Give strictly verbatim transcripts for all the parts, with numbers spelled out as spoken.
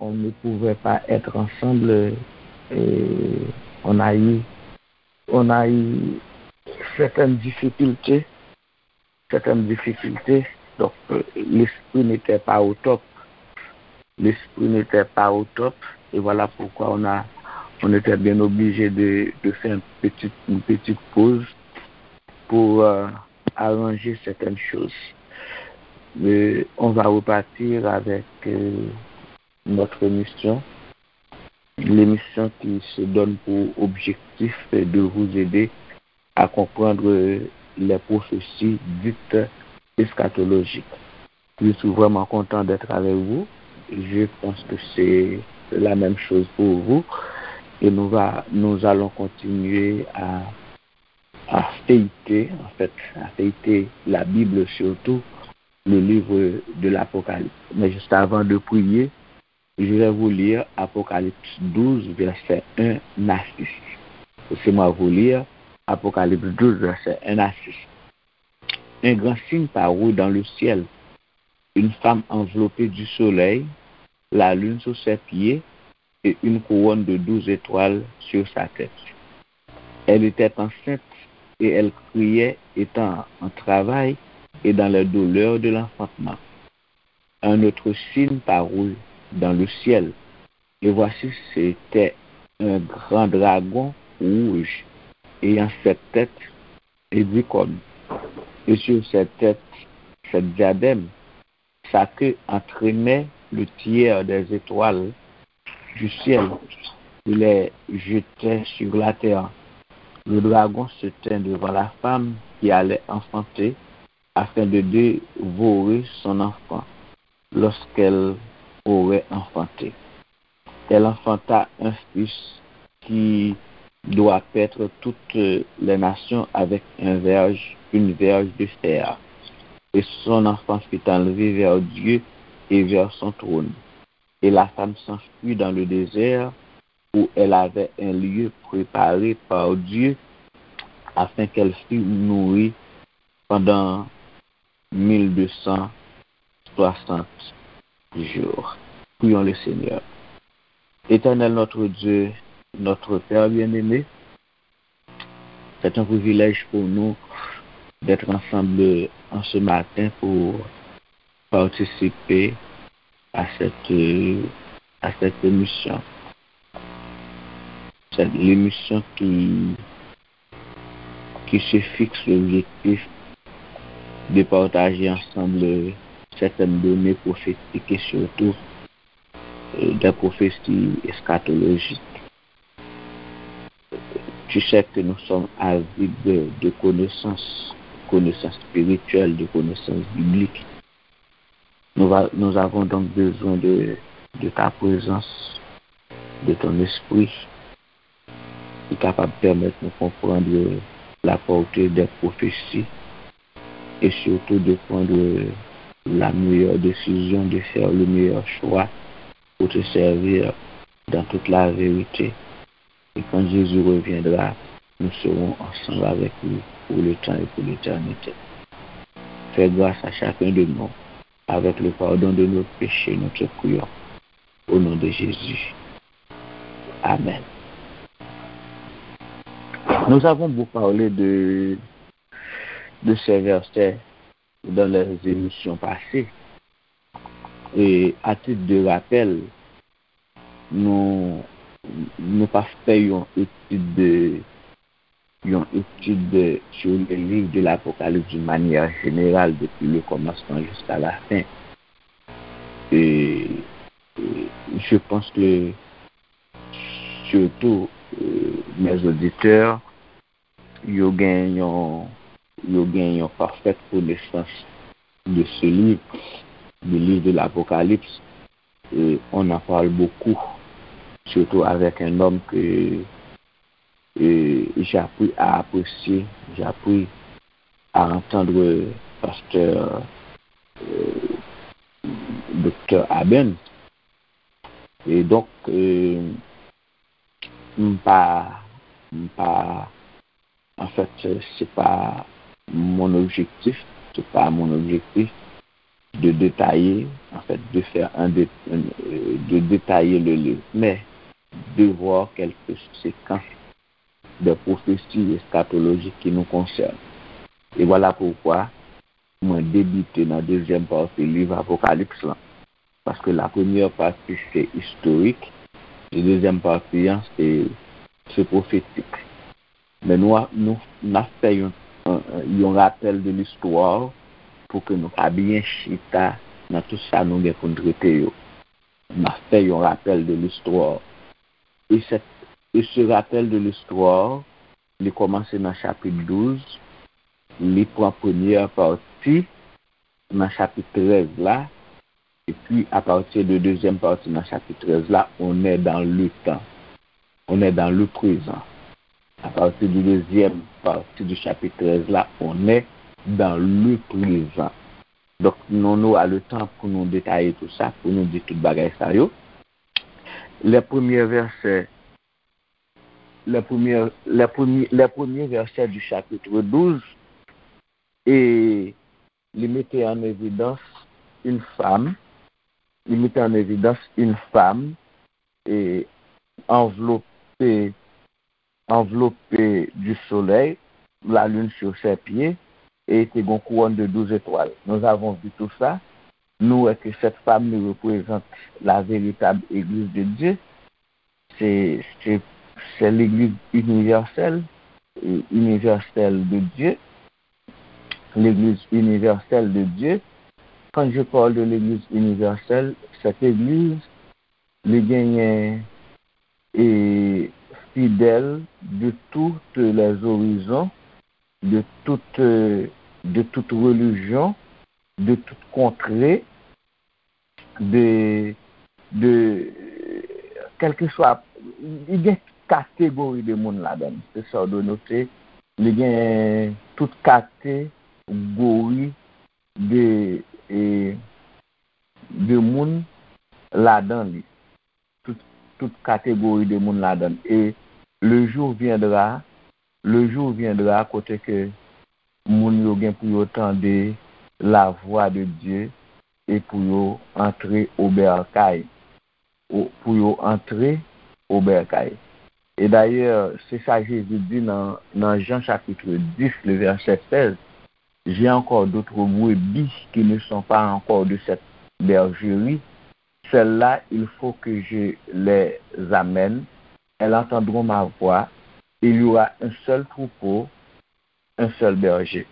on ne pouvait pas être ensemble, et on a eu, on a eu certaines difficultés, certaines difficultés. Donc, euh, l'esprit n'était pas au top. L'esprit n'était pas au top. Et voilà pourquoi on a, on était bien obligé de, de faire une petite, une petite pause pour euh, arranger certaines choses. Mais on va repartir avec euh, notre émission, l'émission qui se donne pour objectif de vous aider à comprendre les prophéties dites eschatologiques. Je suis vraiment content d'être avec vous. Je pense que c'est la même chose pour vous. Et nous, va, nous allons continuer à, à feuilleter, en fait, à feuilleter la Bible surtout, le livre de l'Apocalypse. Mais juste avant de prier, je vais vous lire Apocalypse douze, verset un à six. Laissez-moi vous lire Apocalypse douze, verset un à six. Un grand signe parut dans le ciel, une femme enveloppée du soleil, la lune sous ses pieds et une couronne de douze étoiles sur sa tête. Elle était enceinte et elle criait, étant en travail et dans les douleurs de l'enfantement. Un autre signe parut dans le ciel, et voici, c'était un grand dragon rouge, ayant sept têtes et dix cornes, et sur ses têtes sept diadèmes. Sa queue entraînait le tiers des étoiles du ciel et les jetait sur la terre. Le dragon se tint devant la femme qui allait enfanter, afin de dévorer son enfant lorsqu'elle aurait enfanté. Elle enfanta un fils qui doit paître toutes les nations avec un verge, une verge de fer. Et son enfant fut enlevé vers Dieu et vers son trône. Et la femme s'enfuit dans le désert, où elle avait un lieu préparé par Dieu, afin qu'elle fût nourrie pendant mille deux cent soixante jours. Prions le Seigneur. Éternel notre Dieu, notre Père bien-aimé, c'est un privilège pour nous d'être ensemble en ce matin pour participer à cette, à cette émission. C'est l'émission qui, qui se fixe l'objectif de partager ensemble certaines données prophétiques et surtout euh, des prophéties eschatologiques. Tu sais que nous sommes avides de, de connaissances, connaissances spirituelles, de connaissances bibliques. Nous, va- nous avons donc besoin de, de ta présence, de ton esprit, qui est capable de permettre de comprendre la portée des prophéties et surtout de prendre la meilleure décision, de faire le meilleur choix pour te servir dans toute la vérité. Et quand Jésus reviendra, nous serons ensemble avec lui pour le temps et pour l'éternité. Fais grâce à chacun de nous. Avec le pardon de nos péchés, nous te prions. Au nom de Jésus. Amen. Nous avons beaucoup parlé de, de ces versets dans les émissions passées. Et à titre de rappel, nou nou pa fè yon etid de yon etid sur le livre de l'Apocalypse d'une manière générale depuis le commencement jusqu'à la fin. Et, et je pense que surtout euh, mes auditeurs yo gen yon yo gen yon parfaite connaissance de ce livre, du livre de l'Apocalypse. Et on en parle beaucoup, surtout avec un homme que euh, j'ai appris à apprécier, j'ai appris à entendre pasteur euh, docteur Aben. Et donc, euh, m pa, m pa, en fait, c'est pas mon objectif, c'est pas mon objectif de détailler, en fait, de faire un dé- un- euh, de détailler le livre, mais de voir quelques séquences de prophéties eschatologiques qui nous concernent. Et voilà pourquoi mwen debite nan dezyèm pati liv Apokalips lan. Paske la premyè pati se istorik, e dezyèm pati an se, se pwofetik. Men nou, nou, n ap fè yon, yon rapèl de listwa pou ke nou ka byen chita nan tout sa nou gen pou n trete yo. N ap fè yon rapèl de listwa. E, e se rapèl de listwa, li kòmanse nan chapit douz, li pran premyè pati nan chapit trèz la, epi apati de dezyèm pati nan chapit trèz la, on est dans le temps, on est dans le présent. Apati de dezyèm pati de chapit trèz la, on est dans le présent. Donk, nou, nou a le tan pou nou detaye tou sa, pou nou di tout bagay sa yo. Les premiers versets, les premiers, les premiers, les premiers versets du chapitre douze, e li mete an evidans une femme, li mete an evidans une femme et enveloppée, enveloppée du soleil, la lune sur ses pieds, et était une couronne de douze étoiles. Nous avons vu tout ça. Nous, que cette femme nous représente la véritable Église de Dieu. C'est, c'est, c'est l'Église universelle, euh, universelle de Dieu. L'Église universelle de Dieu. Quand je parle de l'Église universelle, cette Église, li genyen e fidèl de tous les horizons, de toute, euh, de toute religion, de toute contrée, de, de, kèlkeswa, li gen tout kategori de moun ladan l. Se sa w dwe note, li gen tout kategori de, e, de moun ladan li. Tout, tout kategori de moun ladan l. E le jour viendra, le jour viendra kote ke moun yo gen pou yo tande la voix de Dieu e pou yo antre o bèkay. Ou, pou yo antre o bèkay. E dayè, se sa Jezi di nan, nan Jan chapit dis, le vèsè sèz, J'ai encore d'autres brebis qui ne sont pas encore de cette bergerie. Celles-là, il faut que je les amène. Elles entendront ma voix. Il y aura un seul troupeau, un seul berger.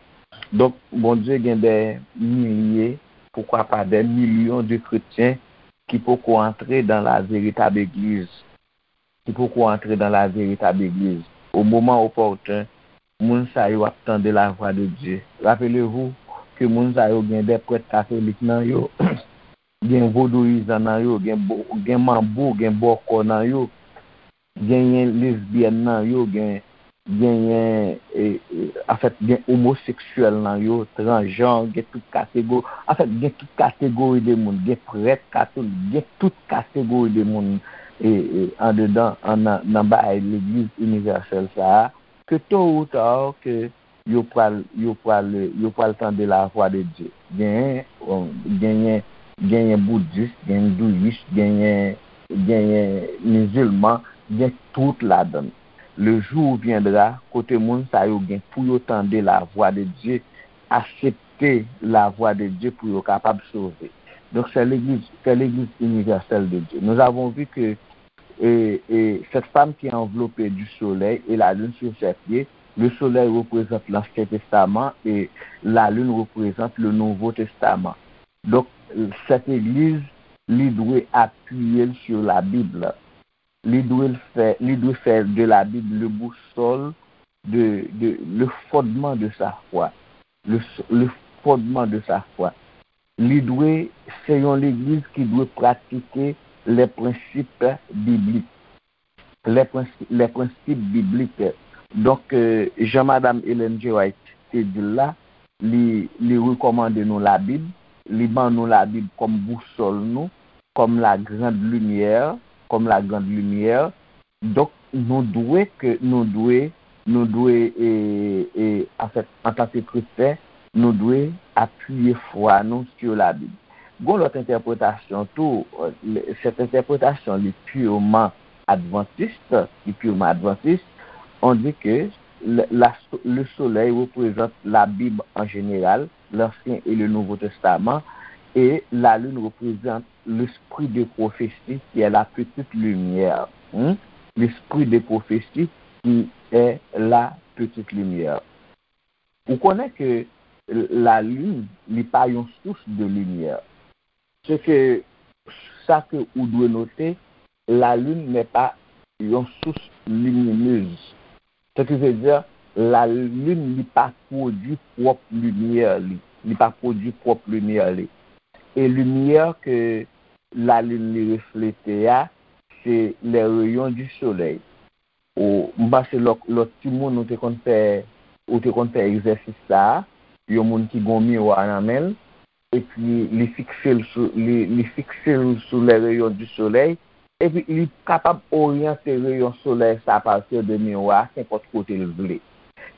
Donk, Bondye gen dè milye, poukwa pa dè milyon de kretyen ki poko antre dans la véritable église, ki poko antre dans la véritable église. Au moment opportun, moun sa yo ap tande la voix de Dieu. Rappelez-vous que moun sa yo gen dè prèt katolik nan yo, gen vodouyizan nan yo, gen, gen manbo, gen bòkò nan yo, genyen lesbyèn nan yo, gen, genyen, e, e, anfèt, gen omoseksyèl nan yo, transjan, gen tout kategori, anfèt, gen tout kategori de moun, gen prèt katolik, gen tout kategori de moun, e, e, andedan, an, nan, nan bagay legliz inivèsèl sa a, ke to ou ta, ke yo pral, yo pral, yo pral tande la voix de Dieu. Genyen, genyen, genyen boudis, genyen hindouyis, genyen, genyen mizilman, gen tout ladan. Le jour viendra, kote moun sa yo gen pou yo tande la voix de Dieu, aksepte la voix de Dieu pou yo kapab sove. Donc, c'est l'église, c'est l'église universelle de Dieu. Nous avons vu que et, et cette femme qui est enveloppée du soleil et la lune sur ses pieds, le soleil représente l'Ancien Testament et la lune représente le Nouveau Testament. Donc, cette église, li dwe apiye l sur la Bible. Li dwe l fè, li dwe fè de la Bible le boussole de, de, le fondement de sa foi. Le, le fondement de sa foi. Li dwe, se yon legliz ki dwe pratike les principes bibliques. Les principes, les principes bibliques. Donk, euh, jan Madanm Ellen G. White te di l la, li, li rekòmande nou Labib, li ban nou Labib kòm bousòl nou, comme la grande lumière, comme la grande lumière. Donk, nou dwe ke, nou dwe, nou dwe, e, e, anfèt, antanke kretyen, nou dwe apiye fwa nou sou Labib. Gon lòt entèpretasyon tou, sèt entèpretasyon li piman advantist, li piman advantist, on di ke le, la, le soleil représente la Bible en général, l'Ancien et le Nouveau Testament, et la lune représente l'esprit de prophétie qui est la petite lumière. Hmm? L'esprit de prophétie qui est la petite lumière. Ou konnen ke lalin, li pa yon sous de limyè. Se ke sa ke ou dwe note, lalin n'est pas yon sous lumineuse. Ce qui veut dire, lalin li pa pwodui pwòp limyè li. Li pa pwodui pwòp limyè li. E limyè ke lalin li reflete a, se les rayons du soleil. Ou, m panse lòt, lòt timoun ou te konn fè, ou te konn fè egzèsis sa a, yon moun ki gon miwa nan men l, epi li fikse l sou, li, li fikse l sou les rayons du soleil, epi li kapab oryante reyon solèy sa a partir de miwa a, senpòt kote l vle.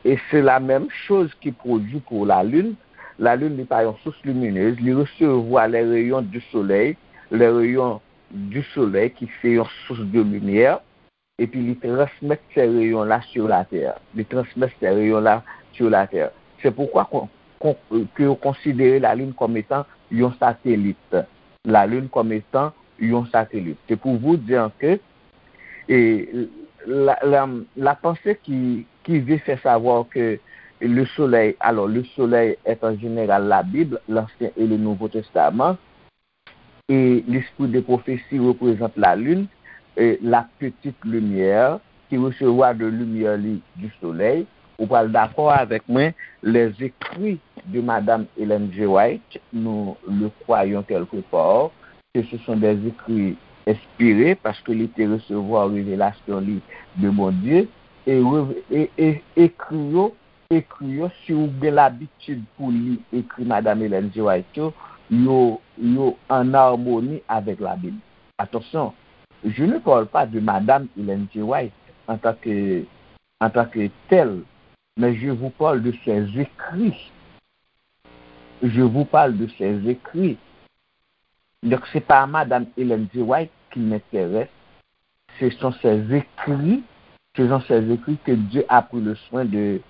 E se la menm choz ki pwodui pou lalin. Lalin, li pa yon sous liminez, li resevwa les rayons du soleil, les rayons du soleil ki se yon sous de limyè, epi li transmèt se reyon la sur la tè. Li transmèt se reyon la sur la tè. Se poukwa kon, kon, ke yo konsidere lalin kòm etan yon satelit. Lalin kòm etan yon satelit. C'est pour vous dire que et la, la, la pensée qui, qui veut faire savoir que le soleil, alors le soleil est en général la Bible, l'Ancien et le Nouveau Testament, et l'esprit de prophétie représente la lune, et la petite lumière qui recevra de lumière li du soleil. Ou pral dakò avèk mwen, les écrits de Madame Ellen G. White, nous le croyons quelque part, que ce sont des écrits inspirés, paske li te resevwa revelasyon li de Bondye, e, e, e ekri yo, ekri yo, si ou gen labitid pou li ekri Madame Ellen G. White yo, yo, yo an amoni avèk Labib. Attention, je ne parle pas de Madame Ellen G. White en tant que, en tant que telle, mais je vous parle de ses écrits. Je vous parle de ses écrits. Donc, c'est pas Madame Ellen G. White qui m'intéresse, ce sont ses écrits, ce sont ses écrits que Dieu a pris le soin de,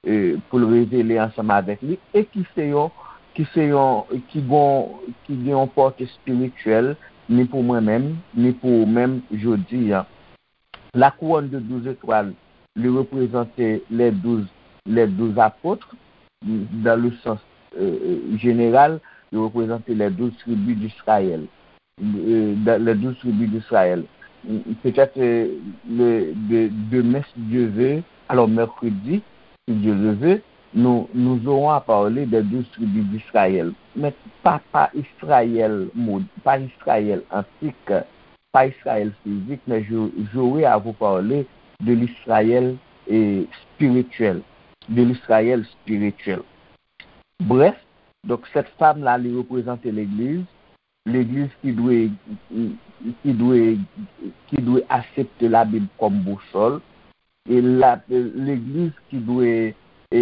euh, pour le révéler ensemble avec lui et qui se yon, qui se yon, qui gon, qui gen yon pòte espirityèl, ni pou mwen menm, ni pou ou menm jodi a. La couronne de douze étoiles, li reprezante les douze, les douze apôtres, dans le sens, euh, général, li reprezante les douze tribus d'Israël. Euh, dans les douze tribus d'Israël. Peut-être, euh, le, de, demain, si Dieu veut, alors mercredi, si Dieu le veut, nous, nous aurons à parler des douze tribus d'Israël. Mais pas, pas Israël, pas Israël antique, pas Israël physique, mais je, j'aurai à vous parler de l'Israël, eh, spirituel, de l'Israël spirituel. Bref, donc cette femme-là, li reprezante legliz, legliz ki dwe, ki dwe, ki dwe aksepte Labib kòm bousòl, e la, legliz ki dwe, e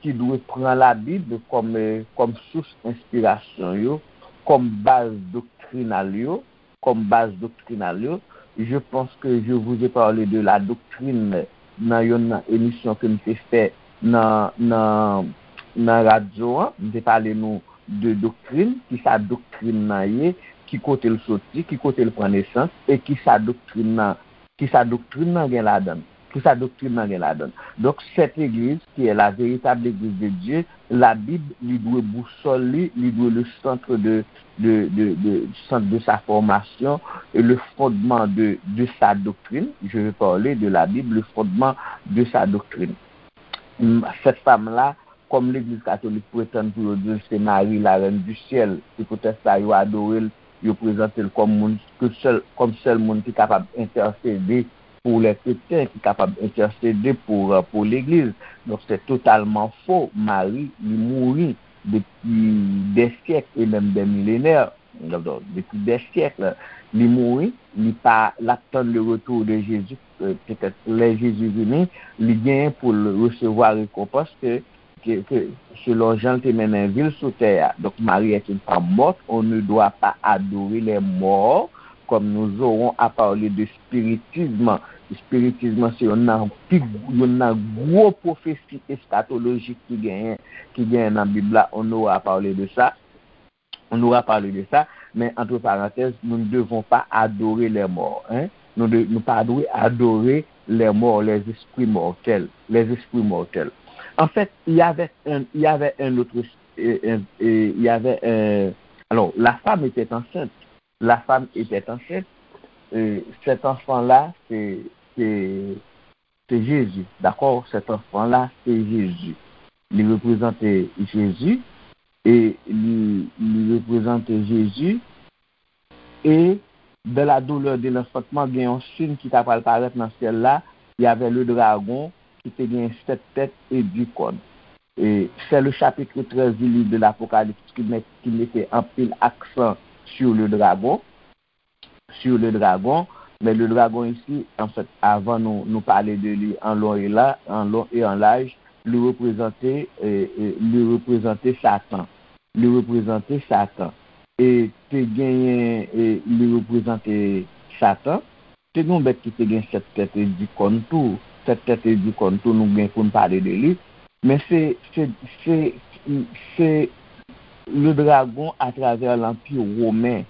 ki dwe pran Labib kòm, e, kòm sous enspirasyon yo, kòm baz doktrinal yo, kòm baz doktrinal yo. Je pense que je vous ai parlé de la doctrine nan yonn nan emisyon ke m te fè nan, nan, nan radyo an. M te pale nou de doktrin, ki sa doktrin nan ye, ki kote l soti, ki kote l pran nesans, e ki sa doktrin nan, ki sa doktrin nan gen ladan l, ki sa doktrin nan gen ladan l. Donk, cette église, qui est la véritable église de Dieu, Labib, li dwe bousòl li, li dwe le centre de, de, de, de, centre de sa formation, et le fondement de, de sa doctrine. Je vais parler de la Bible, le fondement de sa doctrine. Cette femme-là, kòm legliz katolik pretann pou yo di l se Mari, la reine du ciel, se poutèt sa yo adore l, yo prezante l kòm moun, ke sèl, kòm sèl moun ki kapab entèsede pou lè kretyen, ki kapab entèsede pou, euh, pou legliz. Donk, se totalman fo. Mari, li mouri depi dè syèk e menm dè milenè. Donk, depi dè syèk, li mouri, li pa, l ap tann le retour de Jésus, euh, petèt lè Jezi vini, li genyen pou l resevwa rekonpans ke ke, ke, selon jan l te mennen vi l sou tè a. Donc, Marie est une femme morte, on ne doit pas adorer les morts, comme nous aurons à parler de spiritisme. Spiritism se youn nan pi, youn nan gwo pwofesi eskatolojik ki genyen, ki genyen nan Bib la, on aura parlé de ça. On aura parlé de ça, mais entre parenthèses, nous ne devons pas adorer les morts, hein. Nou de, nou pa dwe adore les morts, les esprits mortels, les esprits mortels. En fait, il y avait un, il y avait un autre, euh, un- euh, il y avait un, alors, la femme était enceinte. La femme était enceinte. Euh, cet enfant-là, c'est, c'est, c'est Jésus. D'accord? Cet enfant-là, c'est Jésus. Li reprezante Jezi. E li, li reprezante Jezi. Et dans la douleur de l'enfantement, gen yon siy ki ta pral parèt nan syèl la, y avait le dragon ki te gen sèt tèt e dis kòn. Et c'est le chapitre treize du livre de l'Apocalypse qui met, qui mettait anpil aksan sur le dragon, sur le dragon. Mais le dragon ici, en fait, avan nou, nou pale de li an lon e la, an lon e an laj, li reprezante, e, e, li reprezante Satan. Li reprezante Satan. E te genyen, e, li reprezante Satan. Te gen yon bèt ki te gen sèt tèt e dis kòn tou. Sèt tèt e dis kòn tou, nou gen pou n pale de li. Men se, se, se, se le dragon atravè lanpi women,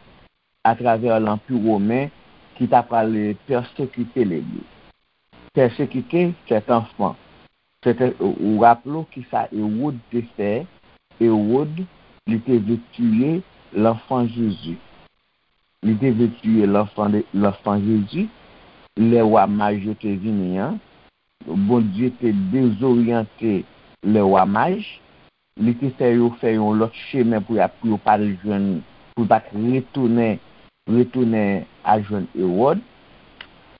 atravè lanpi women ki ta pral pèsekite legliz. Pèsekite sèt anfan. Sèt, ou raple w ki sa Ewòd te fè? Ewòd, li te vle tiye lanfan Jezi. Li te vle tiye lanfan de, lanfan Jezi. Lè wa maj yo te vini an, Bondye te dezoryante lè wa maj. Li te fè yo fè yon lòt chemen pou y ap, pou yo pa t jwenn, pou yo pa t retounen, retounen al jwenn Ewòd.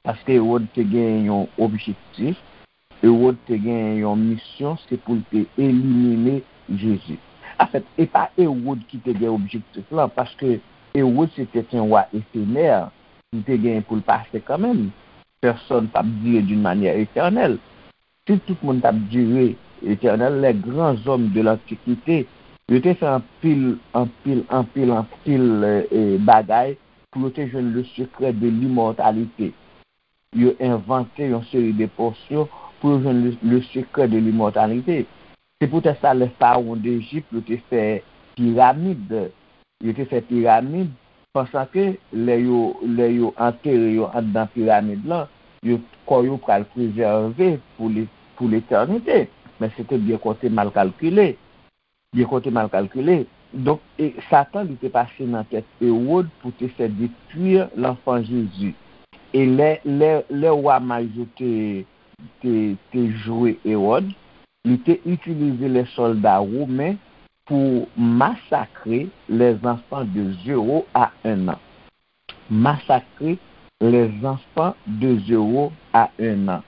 Paske Ewòd te gen yon objektif, Ewòd te gen yon misyon, se pou l te elimine Jezi. Anfèt, e pa Ewòd ki te gen objektif lan, paske Ewòd se te yon wa efemè, li te gen pou l pase kanmenm. Pèsòn p ap dire d'une manière éternelle. Si tout moun t ap dire etènèl, les grands hommes de l'Antiquité, yo te fè anpil, anpil, anpil, anpil, e, e, bagay pou yo te jwenn le secret de l'immortalité. Yo envante yon seri de posyon pou yo jwenn le, le secret de l'immortalité. Se poutèt sa, lè farawon Dejip, yo te fè piramid. Yo te fè piramid, pansan ke lè yo, lè yo antere yo anndan piramid lan, yo, kò yo pral prezève pou le, pou letènite. Men se te byen konte mal kalkile. Byen konte mal kalkile. Donk, e, Satan, li te pase nan tèt Ewòd pou te fè detwi lanfan Jezi. E lè, lè, lè wa maj yo te, te, te joure Ewòd, li te itilize les soldats romains pour massacrer les enfants de zéro à un an. Massacrer les enfants de zéro à un an.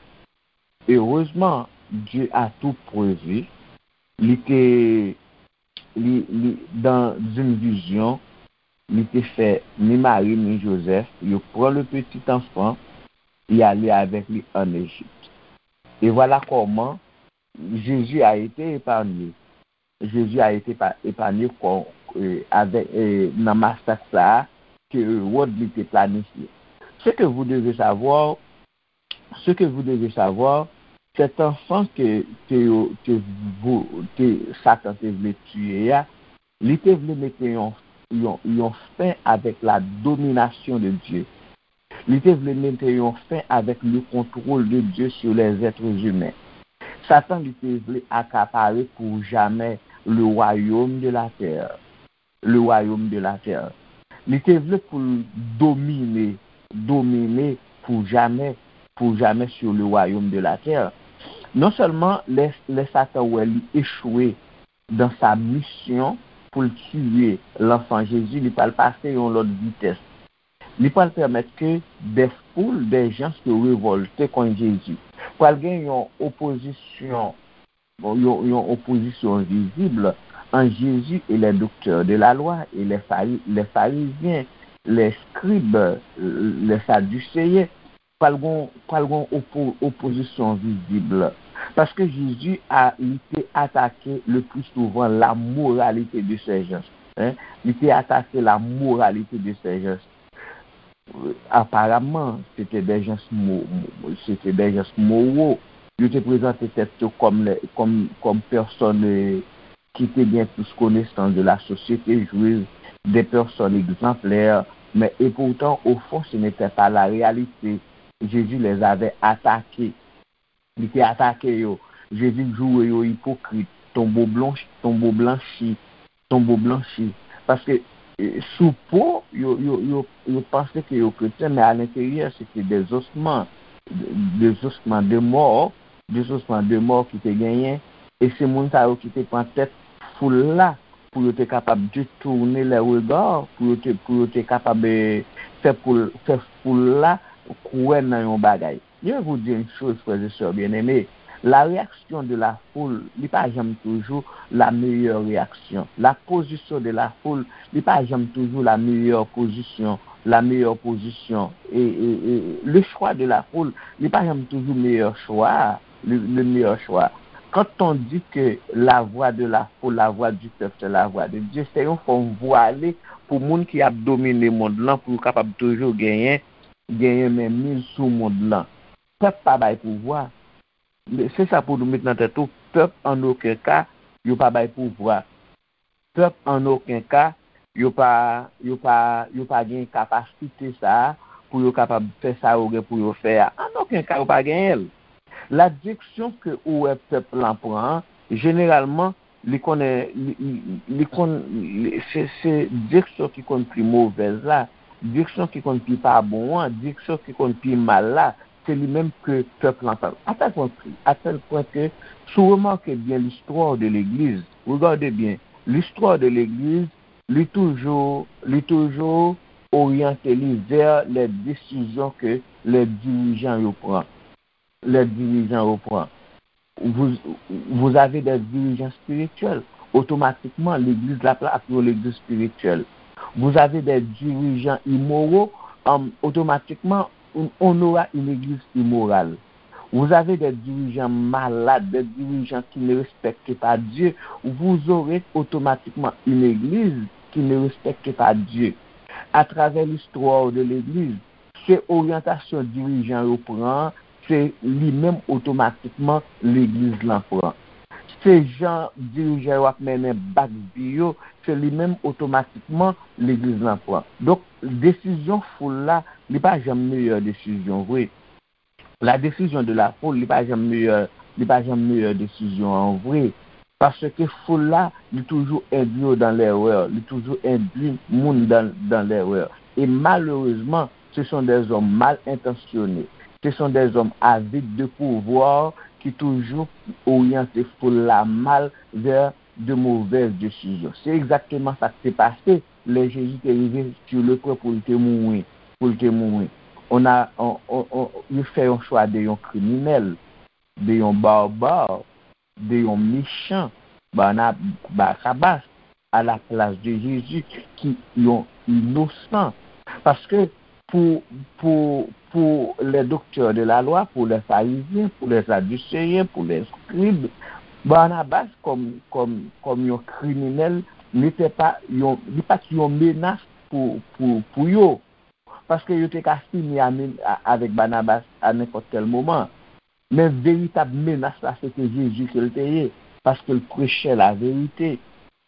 Heureusement, Dieu a tout prévu. Li te, li, li, dans une vision, li te fè ni Mari ni Joseph, yo pran le petit enfant, y ale avèk li an Ejip. Et voilà comment Jésus a été épargné. Jésus a été pa- épargné kon, e, avè, e, nan masak sa a ke Ewòd li te planifye. Ce que vous devez savoir, ce que vous devez savoir, cet enfant que, que, yo- que vous- que Satan te vle tiye a, li te vle mete yon, yon, yon fen avèk la domination de Dieu. Li te vle mete yon fen avèk le contrôle de Dieu sur les êtres humains. Satan li te vle akapare pour jamais le royaume de la terre. Le royaume de la terre. Li te vle pou l domine, domine pour jamais, pour jamais sur le royaume de la terre. Non sèlman lè, lè Satan wè li echwe dans sa mission pou l tiye lanfan Jezi, li pral pase yon lòt vitès. Li pral pèmèt ke des foules, des gens se révolter contre Jésus. Pral gen yon opozisyon, yon, yon opozisyon vizib entre Jésus et les docteurs de la loi et les Phari- les pharisiens, les scribes, les sadducéens. Pral gon, pral gon opo- opozisyon vizib. Paske Jezi a, li te atake le pli souvan la moralité de ces gens. Hein? Li te atake la moralité de ces gens. Aparaman, se te des gens mo- mo- se te des gens moraux. Yo te prezante tèt yo kòm, kòm, kòm pèsòn ki te gen plis konesans de la société juive, des personnes exemplaires, mais et pourtant, au fond, ce n'était pas la réalité. Jésus les avait attaqués. Li te atake yo. Jezi joure yo ipokrit, tonbo blanchi, tonbo blanchi, tonbo blanchi. Paske eh, sou po, yo, yo, yo, yo panse ke yo kretyen, men alenteryè, se te dezosman, dezosman de mò, dezosman de mò ki te genyen. E se moun sa yo ki te pran tèt foul la pou yo te kapab detounen lè rega, pou yo te, pou yo te kapab eh, fè, pou, fè foul la kwè nan yon bagay. Je vais vous dire une chose, frères et sœurs bien-aimés. La réaction de la foule, li pa janm toujou la meilleure réaction. La position de la foule, li pa janm toujou la meilleure position, la meilleure position. Et, et, et le choix de la foule, li pa janm toujou meilleur choix, le, le meilleur choix. Quand on dit que la voix de la foule, la voix du peuple, c'est la voix de Dieu, se yon fòm vwale pou moun ki ap domine mond lan, pou yo kapab toujou genyen, genyen menmiz sou mond lan. Pèp pa bay pouvwa. Se sa pou nou met nan tèt ou, pèp an okenn ka, yo pa bay pouvwa. Pèp an okenn ka, yo pa, yo pa, yo pa gen kapasite sa a pou yo kapab fè sa yo gen pou yo fè a. An okenn ka, yo pa genyen l. La direksyon ke ou wè pèp lan pran an, jeneralman, li konnen, li, li, li konn, li, se, se direksyon ki konn pi movèz la, direksyon ki konn pi pa bon an, direksyon ki konn pi mal la, se li menm ke pèp lan pran. A tèl pwen, a tèl pwen ke, si w remake byen l'histoire de l'Église, regardez bien, l'histoire de l'Église, li toujou, li toujou oryante li vè lè desizyon ke lè dirijan yo pran. Lè dirijan yo pran. Vous, vous avez des dirigeants spirituels. Otomatikman, legliz la ap yon legliz spirityèl. Vous avez des dirigeants immoraux, um, automatiquement, on, on aura une église immorale. Vous avez des dirigeants malades, des dirigeants qui ne respectent pas Dieu, vous aurez automatiquement une église qui ne respecte pas Dieu. À travers l'histoire de l'église, se oryantasyon dirijan yo pran, se li menm otomatikman legliz lan pran. Se jan dirijan yo ap mennen bak vi yo, se li menm otomatikman legliz lan pran. Donk, desizyon foul la, li pa janm meyè desizyon vre. La décision de la foule, li pa janm meyè, li pa janm meyè desizyon an vre. Paske foul la, li toujou endwi yo dan lerè, li toujou endwi moun dan, dan lerè. E malerezman, ce sont des hommes mal intentionnés, ce sont des hommes avides de pouvoir ki toujou oryante foul la mal vers de mauvaises décisions. Se egzakteman sa k te pase lè Jezi te rive sur le point pou l te mouri, pou l te mouri. On a, on, on, on, yo fè yon chwa de yon kriminèl, de yon barbare, de yon mechan, Barna-, Barabas, à la place de Jésus, ki yon inosan. Paske pou, pou, pour les docteurs de la loi, pour les pharisiens, pour les sadducéens, pour les scribes, Barnabas, comme, comme, comme yon kriminèl, n'était pas yon, li pa t yon menas pou, pou, pou yo. Paske yo te ka fini a men-, a, avèk Barnabas a nenpòt kèl moman. Men veritab menas la, se te Jezi ke l te ye, paske l preche la verite,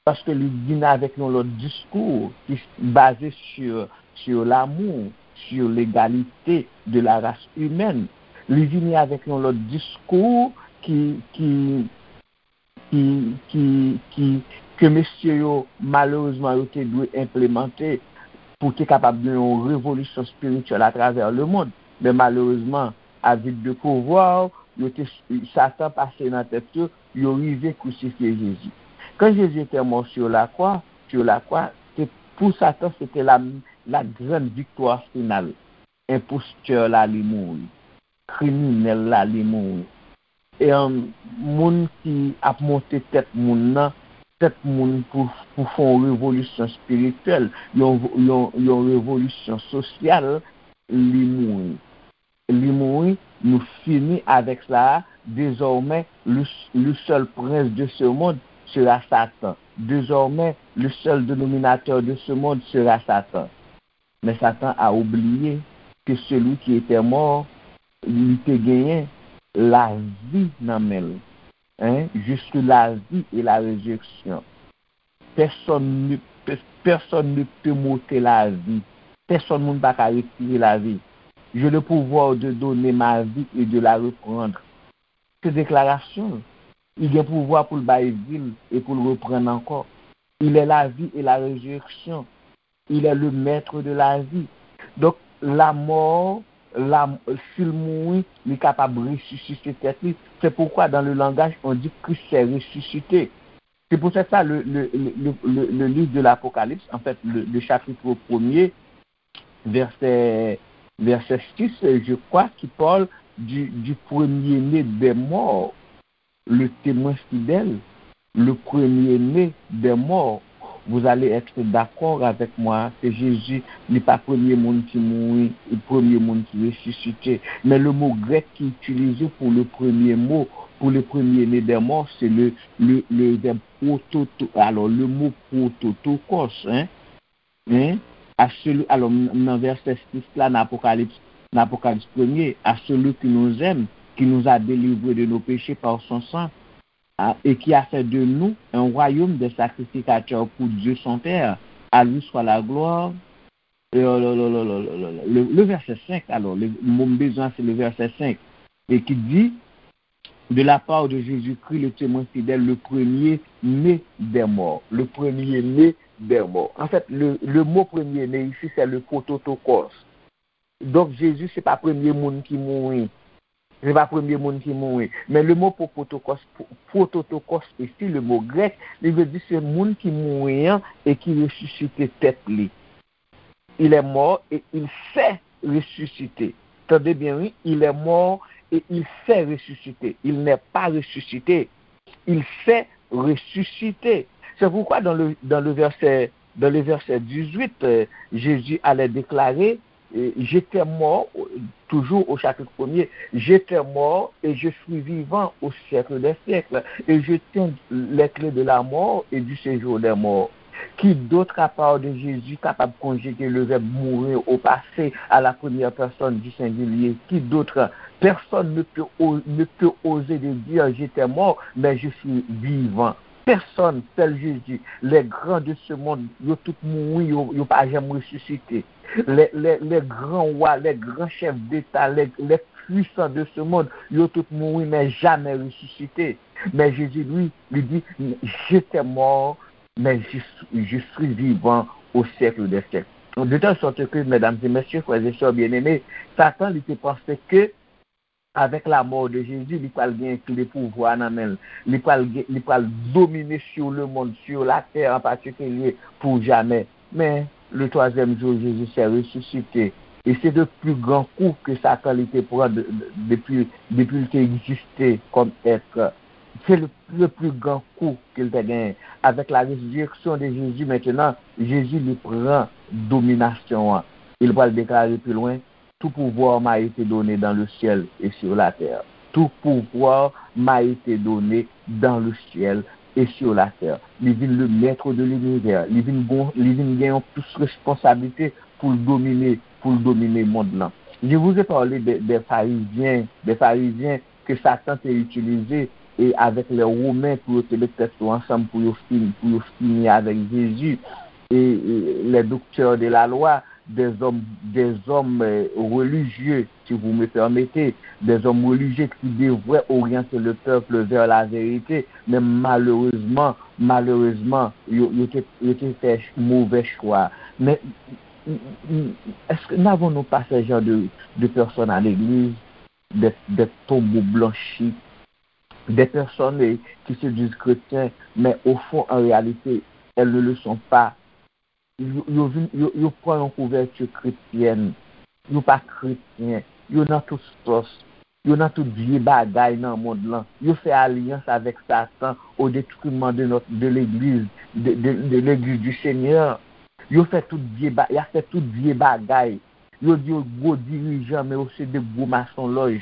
paske li vin avèk yon lòt diskou ki baze sur, sur l'amour, sur l'égalité de la race humaine. Li vini avèk yon lòt diskou ki, ki, ki, ki, ki, ke mesye yo, malerezman, yo te dwe enplemante pou te kapab gen yon revolisyon espirityèl atravè lemonn. Men malerezman, avide de pouvwa, yo te, Satan pase nan tèt yo, yo rive krisifye Jezi. Quand Jésus était mort sur la croix, sur la croix, c'est, pour Satan, c'était la, la grande victoire finale. Enpostè la, li mouri. Kriminèl la, li mouri. E, um, moun ki ap monte tèt moun nan, tèt moun pou, pou fè yon revolisyon espirityèl, yon, yon, yon revolisyon sosyal, li mouri. Li mouri, nou fini avec cela. Désormais, le, le seul prince de ce monde sera Satan. Désormais, le seul dénominateur de ce monde sera Satan. Men Satan a oubliye ke celui qui était mort, li te genyen lavi nan men l. Hein? Je suis la vie et la résurrection. Personne ne, pe- personne ne peut m'ôter la vie. Pèsonn moun pa ka retire lavi. J'ai le pouvoir de donner ma vie et de la reprendre. Se deklarasyon l. Li gen pouvwa pou l bay vi l e pou l reprann ankò. Il est la vie et la résurrection. Il est le maître de la vie. Donk, lamò, la, si l mouri, li kapab resisite tèt li. C'est pourquoi dans le langage, on dit Christ s'est ressuscité. C'est pour ça, le, le, le, le, le, le livre de l'Apocalypse, en fait, le, le chapitre premier, verset, verset six, je crois, qui parle du, du premier-né des morts, le témoin fidèle, le premier-né des morts. Vous allez être d'accord avec moi que Jésus n'est pas premier monde qui mourit, le premier monde qui ressuscité. Mais le mot grec qui est utilisé pour le premier mot, pour le premier-né des morts, c'est le, le, le verbe prototo. Alors, le mot prototokos, hein, hein, à celui, alors, nan vèsè sis la, nan Apokalips, nan Apokalips premye, à celui qui nous aime, qui nous a délivrés de nos péchés par son sang, hein, et qui a fait de nous un royaume de sacrificateurs pour Dieu son Père. À lui soit la gloire. Le, le, le, le, le, le, le, le verset cinq, alors, le, mon besoin, c'est le verset cinq, et qui dit, de la part de Jésus-Christ, le témoin fidèle, le premier-né des morts. Le premier-né des morts. En fait, le, le mot premier-né ici, c'est le prototokos. Donk, Jezi, se pa premye moun ki mouri. Se pa premye moun ki mouri. Men le mo prototokos, prototokos isi, le mo grèk, li vle di se moun ki mouri an e ki resisite tèt li. Il est mort et il s'est ressuscité. Tande byen, wi. Il est mort et il s'est ressuscité. Il n'est pas ressuscité. Il s'est ressuscité. C'est pourquoi dans le, dans le verset, dans le verset dix-huit, euh, Jésus allait déclarer, euh, j'étais mort, euh, toujours au chapitre premier, j'étais mort et je suis vivant au siècle des siècles, et je tiens les clés de la mort et du séjour des morts. Qui d'autre à part de Jésus capable de conjuguer le verbe mourir au passé à la première personne du singulier? Qui d'autre? Personne ne peut, ne peut oser de dire j'étais mort, mais je suis vivant. Pèsonn, sèl Jezi. Les grands de ce monde, yo tout mouri, yo, yo pa janm resisite. Les, les, les grands rois, les grands chefs d'État, les, les puissants de ce monde, yo tout mouri, men jamè resisite. Men Jezi, li, li di, j'étais mort, mais je, je suis vivant au siècle des siècles. De telle sorte que, mesdames et messieurs, frères et sœurs bien-aimés, Satan, li te panse ke avèk la mort de Jésus, li pral gen kle pouvwa nan men l. Li pral gen, li pral domine sur le monde, sur la terre en particulier, pour jamais. Mais le troisième jour, Jésus s'est ressuscité. Et c'est le plus grand coup que Satan li te pran de, de, depi, depi l te egziste kòm èt. Se le, le plus grand coup ke l te genyen. Avec la résurrection de Jésus maintenant, Jezi li pran dominasyon an. E l pral deklare pi lwen, tout pouvoir m'a été donné dans le ciel et sur la terre. Tout pouvoir m'a été donné dans le ciel et sur la terre. Li vin le maître de l'univers. Li vin gon, li vin gen yon plis responsablite pou l domine, pou l domine mond lan. Je vous ai parlé des, des pharisiens, des pharisiens ke Satan te itilize e avèk lè Women pou yo te met tèt yo ansanm pou yo fini, pou yo fini avèk Jezi. E, e les docteurs de la loi, des hommes, des hommes, euh, religieux, si vous me permettez, des hommes religieux qui devraient orienter le peuple vers la vérité, men malerezman, malerezman, yo, yo te, yo te fè ch- movè chwa. Men, m- m- m- est-ce que n'avons-nous pas ce genre de, de personnes à l'église, des, des tombeaux blanchis, des personnes, eh, qui se disent chrétiens, mais au fond, en réalité, elles ne le sont pas. Yo, yo, vin, yo, yo pran yon kouvèti kretyèn. Yo pa kretyen. Yo nan tout sòs. Yo nan tout vye bagay nan mond lan. Yo fè alyans avèk Satan au détriment de notre, de l'église, de, de, de l'église du Seigneur. Yo fè tout vye ba, y a fè tout vye bagay. Yo di yo gwo dirijan, men yo se de gwo masonlòj.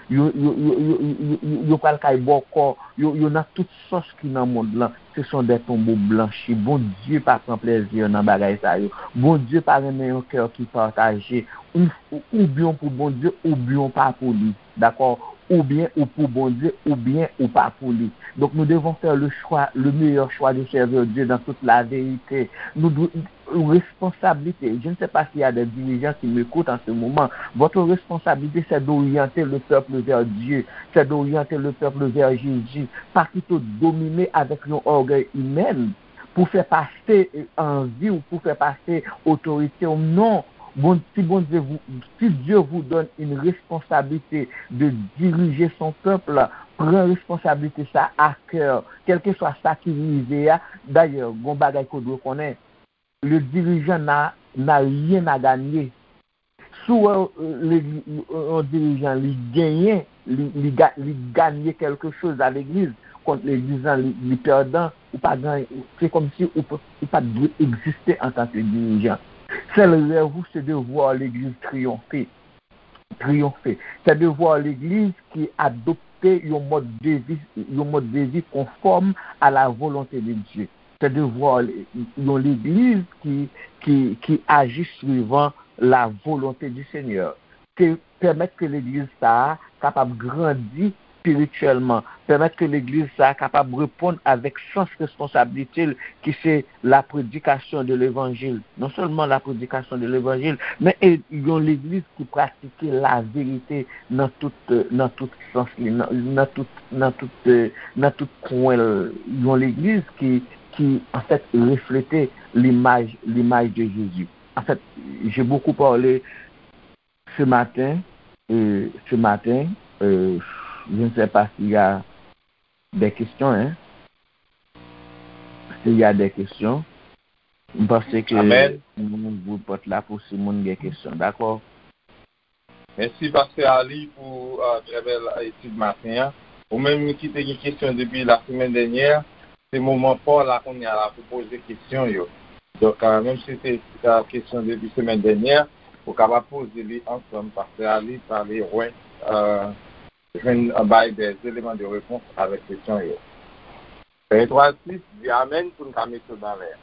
Yo, yo, yo, yo, yo, yo, yo pral kay bòkò. Yo, yo nan tout sòs ki nan mond lan. Ce sont des tombeaux blanchis. Bondye pa pran plezi nan bagay sa yo. Bondye pa renmen yon kè ki pataje. Ou, oubyen w pou Bondye, oubyen w pa pou li. Dakò? Oubyen ou pou Bondye, oubyen ou pa pou li. Donc nous devons faire le choix, le meilleur choix de servir Dieu dans toute la vérité. Nou dwe, responsabilité. Je ne sais pas s'il y a des dirigeants qui m'écoutent en ce moment. Votre responsabilité, c'est d'orienter le peuple vers Dieu, c'est d'orienter le peuple vers Jésus, pas plutôt dominer avec yon ògèy imèn pou fè pase anvi w, pou fè pase otorite w. Non, bon, si Bondye vous, si Dieu vous donne une responsabilité de diriger son peuple, pran responsablite sa a kè, kèlkeswa sa ki rive a. Dayè, gon bagay ke w dwe konnen, le dirijan n'a, n'a rien à gagner. Si w wè, euh, legliz, yon dirijan li genyen, li, li, ga- li ganye kèlke choz a legliz, kont legliz lan li, li pèdan, ou pa ganye, se kòmsi ou, p- ou pa t dwe egziste antanke dirijan. Sèl rèv ou, se de voir legliz triyonfe. Triyonfe. Se de voir legliz ki adopte yon mòd de vi, yon mòd de vi konfòm a la volonte de Dye. Se de voir yon legliz ki, ki, ki aji suivant la volonte du Seigneur. Ke pèmèt ke legliz sa a kapab grandi espirityèlman, pèmèt ke legliz sa a kapab reponn avèk sans responsablite l, ki se la prédication de l'évangile. Non sèlman la prédication de l'évangile, men e yon legliz ki pratike la verite nan tout, nan tout sans li, nan, nan tout, nan tout, euh, nan tout kwen l. Yon legliz ki, ki, anfèt, reflete limaj, limaj de Jésus. En fait, j'ai beaucoup parlé ce matin, euh, ce matin, euh, je ne sais pas s'il y a des questions, hein. S'il y a des questions, m panse ke Amen. Nou ouvri pòt la pou si moun gen kesyon, dakò? Mèsi, Pastè Ali, pou, euh, trè bèl etid maten an. Ou menm ki te gen kesyon depi la semèn dènyè, se moman pa w la kounye a la pou poze kesyon yo. Donk, euh, menm si se, euh, kesyon depi semèn dènyè, ou kapab poze li ansanm, Pastè Ali pale wè, euh, jwenn, euh, bay des éléments de réponse avèk kesyon yo. Etwal sis, di amèn pou n ka mete w nan lè a.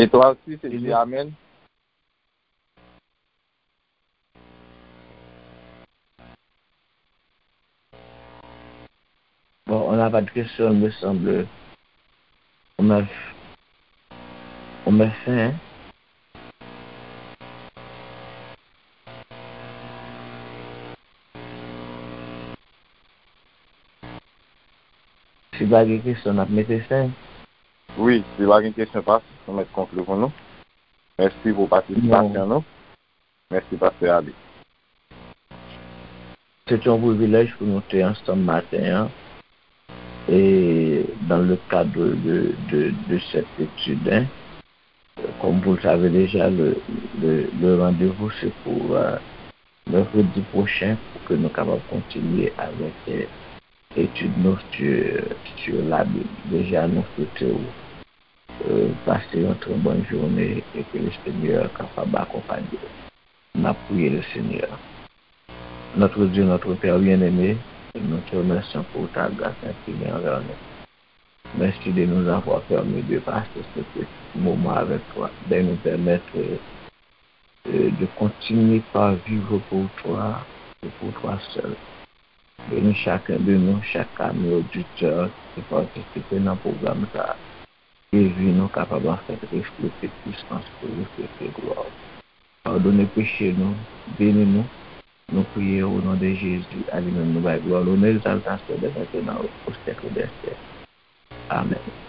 Etwal sis, e di amèn. Bon, on n'a pas de questions, il me semble. On met, on met fin, hein? Si pa gen kesyon, n ap mete fen. Wi, si pa gen kesyon, pas, nou mèt konkli pou nou. Mèsi pou patisipasyon nou. Mèsi, Pastè Ali. Se te yon privilèj pou nou te ansanm maten an, e dans le cadre de, de, de cette étude, hein. Comme vous le savez déjà, le, le, le rendez-vous, c'est pour, euh, mercredi prochain, pour que nous capables continuer avec, euh, étude nou sur, sur la Bible. Déjà, nous souhaitons, euh, passer une très bonne journée et que le Seigneur capable accompagner. N ap priye le Seigneur. Notre Dieu, notre Père bien-aimé, nous te remercions pour ta grâce infinie envers nous. Merci de nous avoir permis de passer ce petit moment avec toi, de nous permettre, euh, de continuer par vivre pour toi et pour toi seul. Bénis chacun de nous, chaque ami auditeur ki patisipe nan pwogram sa a. Ke vi nou kapab anfèt reflete pisans ou, reflete glwa ou. Padone peche nou, beni nou. Nou priye o non de Jezi, a li menm nou bay glwa, lonè, egzaltasyon dè mentnan o syèk dè syèk. Amèn.